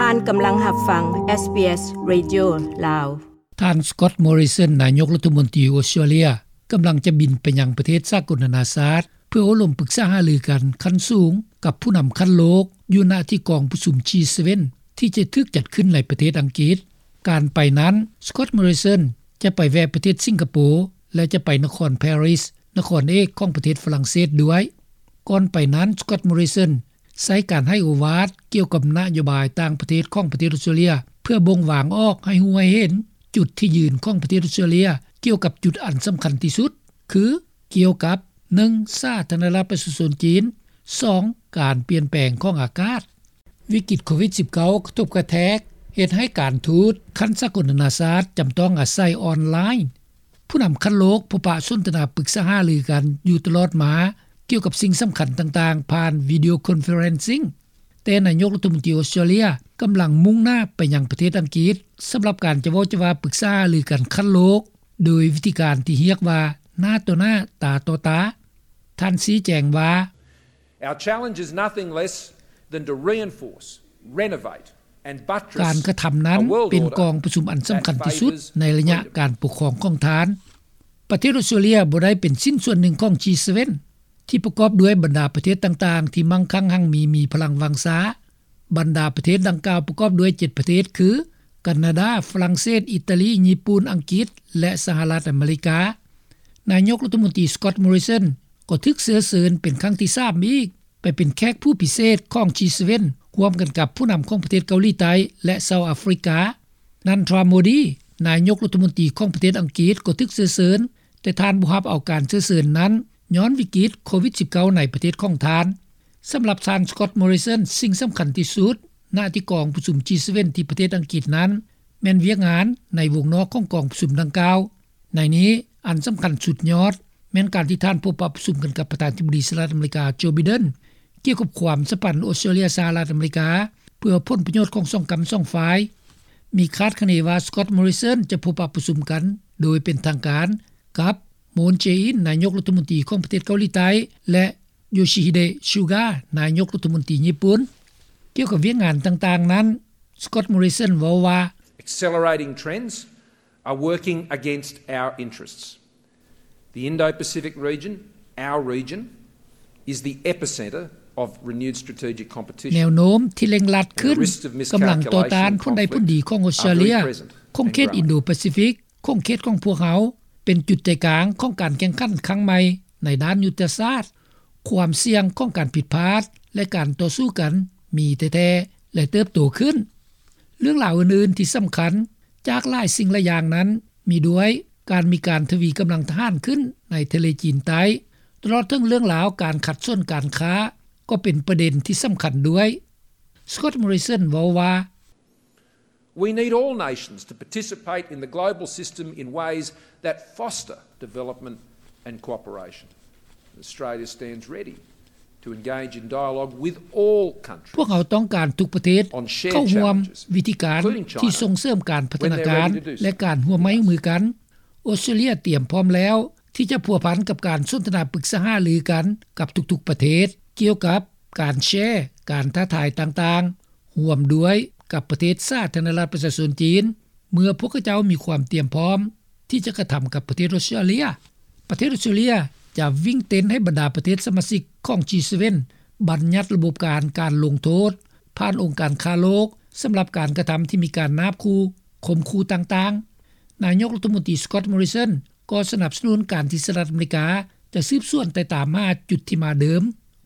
ທ່ານກຳລັງຮັບຟັງ SBS Radio ລາວ. ທ່ານ Scott Morrison ນາຍົກລັດຖະມົນຕີອົດສະຕຣາເລຍ ກຳລັງຈະບິນໄປຍັງປະເທດສາກົນນານາຊາດ ເພື່ອໂອ້ລົມປຶກສາຫາລືກັນຂັ້ນສູງກັບຜູ້ນຳຂັ້ນໂລກ ຢູ່ນະທີ່ກອງປະຊຸມ G seven ທີ່ຈະຖືກຈັດຂຶ້ນໃນປະເທດອັງກິດ. ການໄປນັ້ນ Scott Morrison ຈະໄປແວະປະເທດສິງກະໂປ ແລະ ຈະໄປນະຄອນ Paris ນະຄອນເອກຂອງປະເທດຝຣັ່ງເສດດ້ວຍ. ກ່ອນໄປນັ້ນ Scott Morrison ໃຊ້ການໃຫ້ໂອວາດກ່ຽວກັບນະໂຍບາຍຕ່າງປະເທດຂອງປະເທດອົດສະຕຣາເລຍ ເພື່ອບົ່ງວາງອອກໃຫ້ຮູ້ໃຫ້ເຫັນຈຸດທີ່ຢືນຂອງປະເທດອົດສະຕຣາເລຍ ກ່ຽວກັບຈຸດອັນສຳຄັນທີ່ສຸດ ຄື ກ່ຽວກັບ ໜຶ່ງ ສາທາລະນະລັດປະຊາຊົນຈີນ, ສອງ ການປ່ຽນແປງຂອງອາກາດ. ວິກິດໂຄວິດສິບເກົ້າ ກະທົບກະແທກ ເຮັດໃຫ້ການທູດຂັ້ນສາກົນນານາຊາດ ຈຳຕ້ອງອາໄສອອນລາຍ. ຜູ້ນຳຂັ້ນໂລກພົບປະສົນທະນາປຶກສາຫາລືກັນຢູ່ຕະຫຼອດມາ ກ່ຽວກັບສິ່ງສຳຄັນຕ່າງໆ ຜ່ານ video conferencing. ແຕ່ນາຍົກລັດຖະມົນຕີອົດສະຕຣາເລຍ ກຳລັງມຸ່ງໜ້າໄປຍັງປະເທດອັງກິດ ສຳລັບການຈະເວົ້າຈະວ່າປຶກສາຫາລືກັນຂັ້ນໂລກ ໂດຍວິທີການທີ່ຮຽກວ່າ ໜ້າຕໍ່ໜ້າ ຕາຕໍ່ຕາ. ທ່ານຊີ້ແຈງວ່າ Our challenge is nothing less than to reinforce, renovate and buttress a world order that favours freedom. ການກະທຳນັ້ນເປັນກອງປະຊຸມອັນສຳຄັນທີ່ສຸດໃນໄລຍະການປົກຄອງຂອງທ່ານ. ປະເທດອົດສະຕຣາເລຍບໍ່ໄດ້ເປັນຊິ້ນສ່ວນໜຶ່ງຂອງ G seven ທີ່ປະກອບດ້ວຍບັນດາປະເທດຕ່າງໆ ທີ່ມັ່ງຄັ່ງຮັ່ງມີ ມີພະລັງວັງຊາ. ບັນດາປະເທດດັ່ງກ່າວປະກອບດ້ວຍເຈັດປະເທດ ຄື ການາດາ, ຝຣັ່ງເສດ, ອີຕາລີ, ຍີ່ປຸ່ນ, ອັງກິດ ແລະ ສະຫະລັດອາເມລິກາ. ນາຍົກລັດຖະມົນຕີ Scott Morrison ກໍຖືກເຊື້ອເຊີນເປັນຄັ້ງທີສາມອີກ ໄປເປັນແຂກຜູ້ພິເສດຂອງ G seven ຮ່ວມກັນກັບຜູ້ນຳຂອງປະເທດເກົາຫຼີໃຕ້ ແລະ ເຊົາອາຟຣິກາ. Narendra Modi ນາຍົກລັດຖະມົນຕີຂອງປະເທດອັງກິດ ກໍຖືກເຊື້ອເຊີນ, ແຕ່ທ່ານບໍ່ຮັບເອົາການເຊື້ອເຊີນນັ້ນ ຍ້ອນວິກິດໂຄວິດສິບເກົ້າ ໃນປະເທດຂອງທ່ານ. ສຳລັບທ່ານ Scott Morrison, ສິ່ງສຳຄັນທີ່ສຸດ ນະທີ່ກອງປະຊຸມ G seven ທີ່ປະເທດອັງກິດນັ້ນ ແມ່ນວຽກງານໃນວົງນອກຂອງກອງປະຊຸມດັ່ງກ່າວ. ໃນນີ້, ອັນສຳຄັນສຸດຍອດ ແມ່ນການທີ່ທ່ານພົບປະປະຊຸມກັນກັບປະທານາທິບໍດີສະຫະລັດອາເມລິກາ ໂຈ ໄບເດັນ ກ່ຽວກັບຄວາມສຳພັນອົດສະຕຣາເລຍ-ສະຫະລັດອາເມລິກາ ເພື່ອຜົນປະໂຫຍດຂອງສອງກຳສອງຝ່າຍ. ມີຄາດຄະເນວ່າ Scott Morrison ຈະພົບປະປະຊຸມກັນໂດຍເປັນທາງການກັບ Moon Jae-in ນາຍົກລັດຖະມົນຕີຂອງປະເທດເກົາຫຼີໃຕ້ ແລະ Yoshihide Suga ນາຍົກລັດຖະມົນຕີຍີ່ປຸ່ນ. ກ່ຽວກັບວຽກງານຕ່າງໆນັ້ນ Scott Morrison ເວົ້າວ່າ Accelerating trends are working against our interests. The Indo-Pacific region, our region, is the epicentre of renewed strategic competition. ແນວໂນ້ມທີ່ເລັ່ງລັດຂຶ້ນ ກຳລັງຕໍ່ຕ້ານຜົນໄດ້ຜົນດີຂອງອົດສະຕຣາເລຍ, ຂົງເຂດອິນໂດປາຊີຟິກ, ຂົງເຂດຂອງພວກເຮົາ ເປັນຈຸດໃຈກາງຂອງການແຂ່ງຂັນຄັ້ງໃໝ່ໃນດ້ານຍຸດທະສາດ. ຄວາມສ່ຽງຂອງການຜິດພາດ ແລະ ການຕໍ່ສູ້ກັນມີແທ້ໆ ແລະ ເຕີບໂຕຂຶ້ນ. ເລື່ອງລາວອື່ນໆທີ່ສຳຄັນຈາກຫຼາຍສິ່ງຫຼາຍຢ່າງນັ້ນ ມີດ້ວຍການມີການທະວີກຳລັງທະຫານຂຶ້ນໃນທະເລຈີນໃຕ້, ຕະຫຼອດເຖິງເລື່ອງລາວການຂັດສົນການຄ້າ ກໍເປັນປະເດັນທີ່ສຳຄັນດ້ວຍ. Scott Morrison ເວົ້າວ່າ We need all nations to participate in the global system in ways that foster development and cooperation. Australia stands ready to engage in dialogue with all countries on shared challenges, including China, when they reduce us. ພວກເຮົາຕ້ອງການທຸກປະເທດເຂົ້າຮ່ວມວິທີການທີ່ສົ່ງເສີມການພັດທະນາການ ແລະ ການຮ່ວມໄມ້ຮ່ວມມືກັນ. ອົດສະຕຣາເລຍຕຽມພ້ອມແລ້ວທີ່ຈະພົວພັນກັບການສົນທະນາປຶກສາຫາລືກັນກັບທຸກໆປະເທດ ກ່ຽວກັບການແຊການທ້າທາຍຕ່າງໆ ຮ່ວມດ້ວຍກັບປະເທດສາທາລະນະລັດປະຊາຊົນຈີນ ເມື່ອພວກເຂົາເຈົ້າມີຄວາມຕຽມພ້ອມທີ່ຈະກະທຳກັບປະເທດອົດສະຕຣາເລຍ. ປະເທດອົດສະຕຣາເລຍຈະວິ່ງເຕັ້ນໃຫ້ບັນດາປະເທດສະມາຊິກຂອງ G seven ບັນຍັດລະບົບການ ການລົງໂທດຜ່ານອົງການຄ້າໂລກ ສຳລັບການກະທຳທີ່ມີການນາບຂູ່, ຂົ່ມຂູ່ຕ່າງໆ. ນາຍົກລັດຖະມົນຕີ Scott Morrison ກໍສະໜັບສະໜູນການທີ່ສະຫະລັດອາເມລິກາຈະສືບສວນໄຕ່ຕາມຫາຈຸດທີ່ມາເດີມ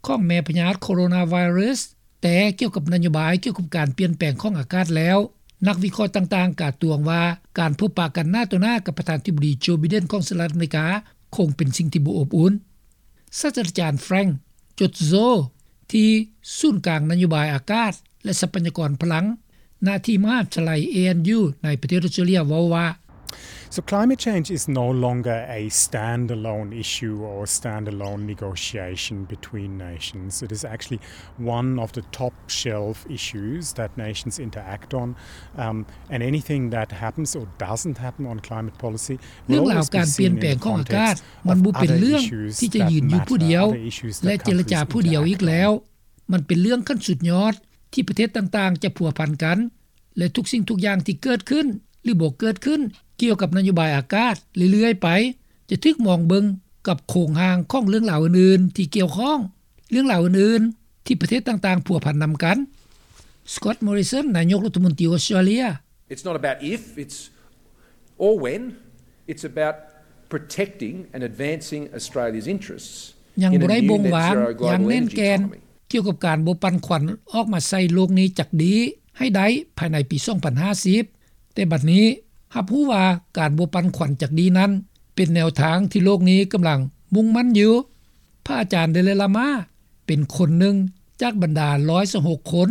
ຂອງແມ່ພະຍາດໂຄໂຣນາໄວຣັສ. ແຕ່ກ່ຽວກັບນະໂຍບາຍກ່ຽວກັບການປ່ຽນແປງຂອງອາກາດແລ້ວ, ນັກວິເຄາະຕ່າງໆກາດຕວງວ່າ ການພົບປະກັນໜ້າຕໍ່ໜ້າກັບປະທານາທິບໍດີ ໂຈ ໄບເດັນ ຂອງສະຫະລັດອາເມລິກາ ຄົງເປັນສິ່ງທີ່ບໍ່ອົບອຸ່ນ. ສາດສະດາຈານ Frank Cozzo ທີ່ສູນກາງນະໂຍບາຍອາກາດ ແລະ ຊັບພະຍາກອນພະລັງ ນະທີ່ມະຫາວິທະຍາໄລ A N U ໃນປະເທດອົດສະຕຣາເລຍ ເວົ້າວ່າ So climate change is no longer a standalone issue or a standalone negotiation between nations. It is actually one of the top shelf issues that nations interact on. Um, and anything that happens or doesn't happen on climate policy ເລື່ອງລາວການປ່ຽນແປງຂອງອາກາດ ມັນບໍ່ເປັນເລື່ອງທີ່ຈະຢືນຢູ່ຜູ້ດຽວ ແລະ ເຈລະຈາຜູ້ດຽວອີກແລ້ວ. ມັນເປັນເລື່ອງຂັ້ນສຸດຍອດ ທີ່ປະເທດຕ່າງໆຈະພົວພັນກັນ ແລະ ທຸກສິ່ງທຸກຢ່າງທີ່ເກີດຂຶ້ນ ຫຼື ບໍ່ເກີດຂຶ້ນ ກ່ຽວກັບນະໂຍບາຍອາກາດເລື້ອຍໆໄປ ຈະຖືກມອງເບິ່ງກັບໂຄງຮ່າງຂອງເລື່ອງລາວອື່ນໆທີ່ກ່ຽວຂ້ອງ, ເລື່ອງລາວອື່ນໆທີ່ປະເທດຕ່າງໆພົວພັນນຳກັນ. Scott Morrison ນາຍົກລັດຖະມົນຕີອອສເຕຣເລັຽ. It's not about if, it's or when. It's about protecting and advancing Australia's interests ຍັງບໍ່ໄດ້ບົ່ງວາງຢ່າງແໜ້ນແກ່ນ ກ່ຽວກັບການບໍ່ປັ່ນຂວັນອອກມາໃສ່ໂລກນີ້ຈັກດີ້ໃຫ້ໄດ້ພາຍໃນປີສອງພັນຫ້າສິບ, ແຕ່ບັດນີ້ຮັບຮູ້ວ່າການບໍ່ປັ່ນຂວັນຈັກດີ້ນັ້ນ ເປັນແນວທາງທີ່ໂລກນີ້ກຳລັງມຸ່ງໝັ້ນຢູ່. ພະອາຈານ Dalai Lama ເປັນຄົນໜຶ່ງຈາກບັນດາຮ້ອຍຊາວຫົກຄົນ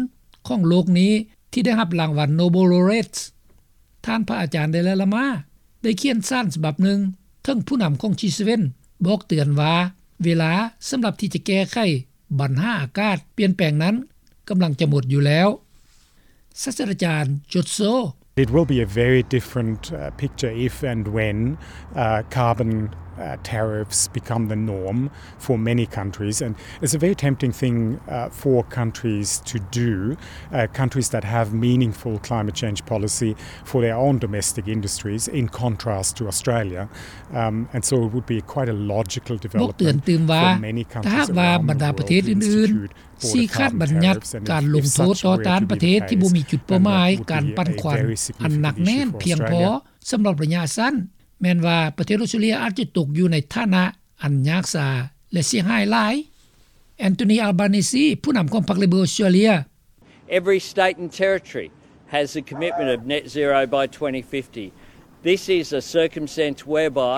ຂອງໂລກນີ້ທີ່ໄດ້ຮັບລາງວັນ Nobel Laureates. ທ່ານພະອາຈານ Dalai Lama ໄດ້ຂຽນສານສະບັບໜຶ່ງເຖິງຜູ້ນຳຂອງ G seven ບອກເຕືອນວ່າ ເວລາສຳລັບທີ່ຈະແກ້ໄຂບັນຫາອາກາດປ່ຽນແປງນັ້ນກຳລັງຈະໝົດຢູ່ແລ້ວ. ສາດສະດາຈານ Jotso. It will be a very different, uh, picture if and when, uh, carbon, uh, tariffs become the norm for many countries. And it's a very tempting thing, uh, for countries to do, uh, countries that have meaningful climate change policy for their own domestic industries, in contrast to Australia. Um, and so it would be quite a logical development for many countries around the world to institute border carbon tariffs. And if such a regime were to come into power, ບອກເຕືອນຕື່ມວ່າ ຖ້າຫາກວ່າບັນດາປະເທດອື່ນໆຊີ້ຂາດບັນຍັດການລົງໂທດຕໍ່ຕ້ານປະເທດທີ່ບໍ່ມີຈຸດເປົ້າໝາຍການປັ່ນຂວັນອັນໜັກແໜ້ນພຽງພໍສຳລັບໄລຍະສັ້ນ, ແມ່ນວ່າປະເທດອອສເຕຣເລັຽອາດຈະຕົກຢູ່ໃນຖານະອັນຍາກຊາ ແລະ ເສຍຫາຍຫຼາຍ. Anthony Albanese ຜູ້ນຳຂອງພັກ Labor ອອສເຕຣເລັຽ. Every state and territory has a commitment of net zero by twenty fifty. This is a circumstance whereby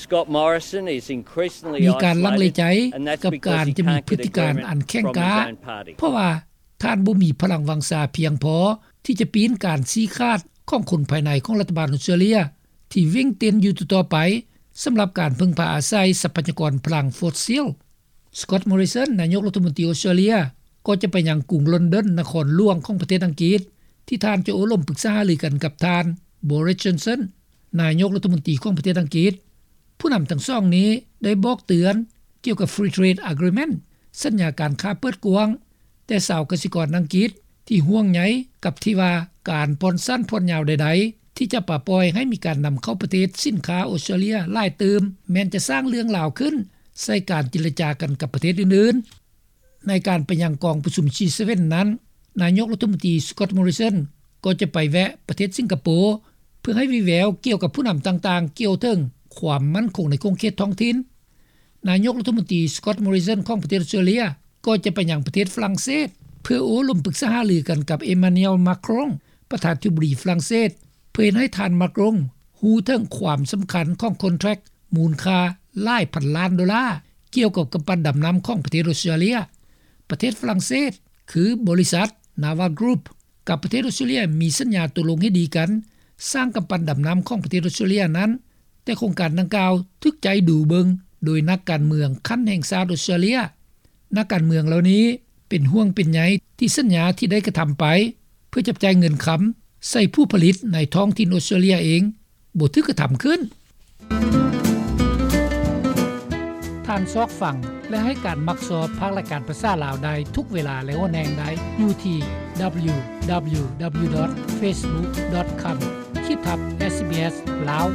Scott Morrison is increasingly isolated, and that's because he can't get agreement from his own party. ມີການລັງເລໃຈກັບການຈະມີພຶດຕິການອັນແຂງກ້າ ເພາະວ່າທ່ານບໍ່ມີພະລັງວັງຊາພຽງພໍທີ່ຈະປີ້ນການຊີ້ຂາດຂອງຄົນພາຍໃນຂອງລັດຖະບານອອສເຕຣເລັຽ ທີ່ເວັ່ງເຕັ້ນຢູ່ຕໍ່ໆໄປ ສຳລັບການເພິ່ງພາອາໄສຊັບພະຍາກອນພະລັງຟອດຊິລ. Scott Morrison ນາຍົກລັດຖະມົນຕີອອສເຕຣເລັຽ ກໍຈະໄປຍັງກຸງລອນດອນ ນະຄອນຫຼວງຂອງປະເທດອັງກິດ ທີ່ທ່ານຈະໂອ້ລົມປຶກສາຫາລືກັນກັບທ່ານ Boris Johnson ນາຍົກລັດຖະມົນຕີຂອງປະເທດອັງກິດ. ຜູ້ນຳທັງສອງນີ້ໄດ້ບອກເຕືອນກ່ຽວກັບ Free Trade Agreement ສັນຍາການຄ້າເປີດກວ້າງ, ແຕ່ຊາວກະສິກອນອັງກິດທີ່ຫ່ວງໃຍກັບທີ່ວ່າການຜ່ອນສັ້ນຜ່ອນຍາວໃດໆ ທີ່ຈະປະປ່ອຍໃຫ້ມີການນຳເຂົ້າປະເທດສິນຄ້າອອສເຕຣເລັຽຫຼາຍຕື່ມ ແມ່ນຈະສ້າງເລື່ອງລາວຂຶ້ນໃສ່ການເຈລະຈາກັນກັບປະເທດອື່ນໆ. ໃນການໄປຍັງກອງປະຊຸມ G seven ນັ້ນ, ນາຍົກລັດຖະມົນຕີ Scott Morrison ກໍຈະໄປແວະປະເທດສິງກະໂປ ເພື່ອໃຫ້ວີແວວກ່ຽວກັບຜູ້ນຳຕ່າງໆກ່ຽວເຖິງຄວາມໝັ້ນຄົງໃນຂົງເຂດທ້ອງຖິ່ນ. ນາຍົກລັດຖະມົນຕີ Scott Morrison ຂອງປະເທດອອສເຕຣເລັຽ ກໍຈະໄປຍັງປະເທດຝຣັ່ງເສດ ເພື່ອໂອ້ລົມປຶກສາຫາລືກັນກັບ Emmanuel Macron ປະທານາທິບໍດີຝຣັ່ງເສດ ເພື່ອເຮັດໃຫ້ທ່ານ Macron ຮູ້ເຖິງຄວາມສຳຄັນຂອງ contract ມູນຄ່າຫຼາຍພັນລ້ານໂດລາ ກ່ຽວກັບກຳປັ່ນດຳນ້ຳຂອງປະເທດອອສເຕຣເລັຽ. ປະເທດຝຣັ່ງເສດ ຄືບໍລິສັດ Nava Group ກັບປະເທດອອສເຕຣເລັຽ ມີສັນຍາຕົກລົງເຫັນດີກັນສ້າງກຳປັ່ນດຳນ້ຳຂອງປະເທດອອສເຕຣເລັຽນັ້ນ, ແຕ່ໂຄງການດັ່ງກ່າວຖືກໃຈດູເບິ່ງໂດຍນັກການເມືອງຂັ້ນແຫ່ງຊາດອອສເຕຣເລັຽ. ນັກການເມືອງເຫຼົ່ານີ້ເປັນຫ່ວງເປັນໃຍທີ່ສັນຍາທີ່ໄດ້ກະທຳໄປ ເພື່ອຈັບຈ່າຍເງິນຄຳໃສ່ຜູ້ຜະລິດໃນທ້ອງຖິ່ນອອສເຕຣເລັຽເອງ ບໍ່ຖືກກະທຳຂຶ້ນ. ທ່ານຊອກຟັງ ແລະ ໃຫ້ການມັກຊອບພາກລາຍການພາສາລາວໄດ້ທຸກເວລາ ແລະ ໂອນແຮງໄດ້ຢູ່ທີ່ www.facebook.com ຂີດທັບ SBS ລາວ.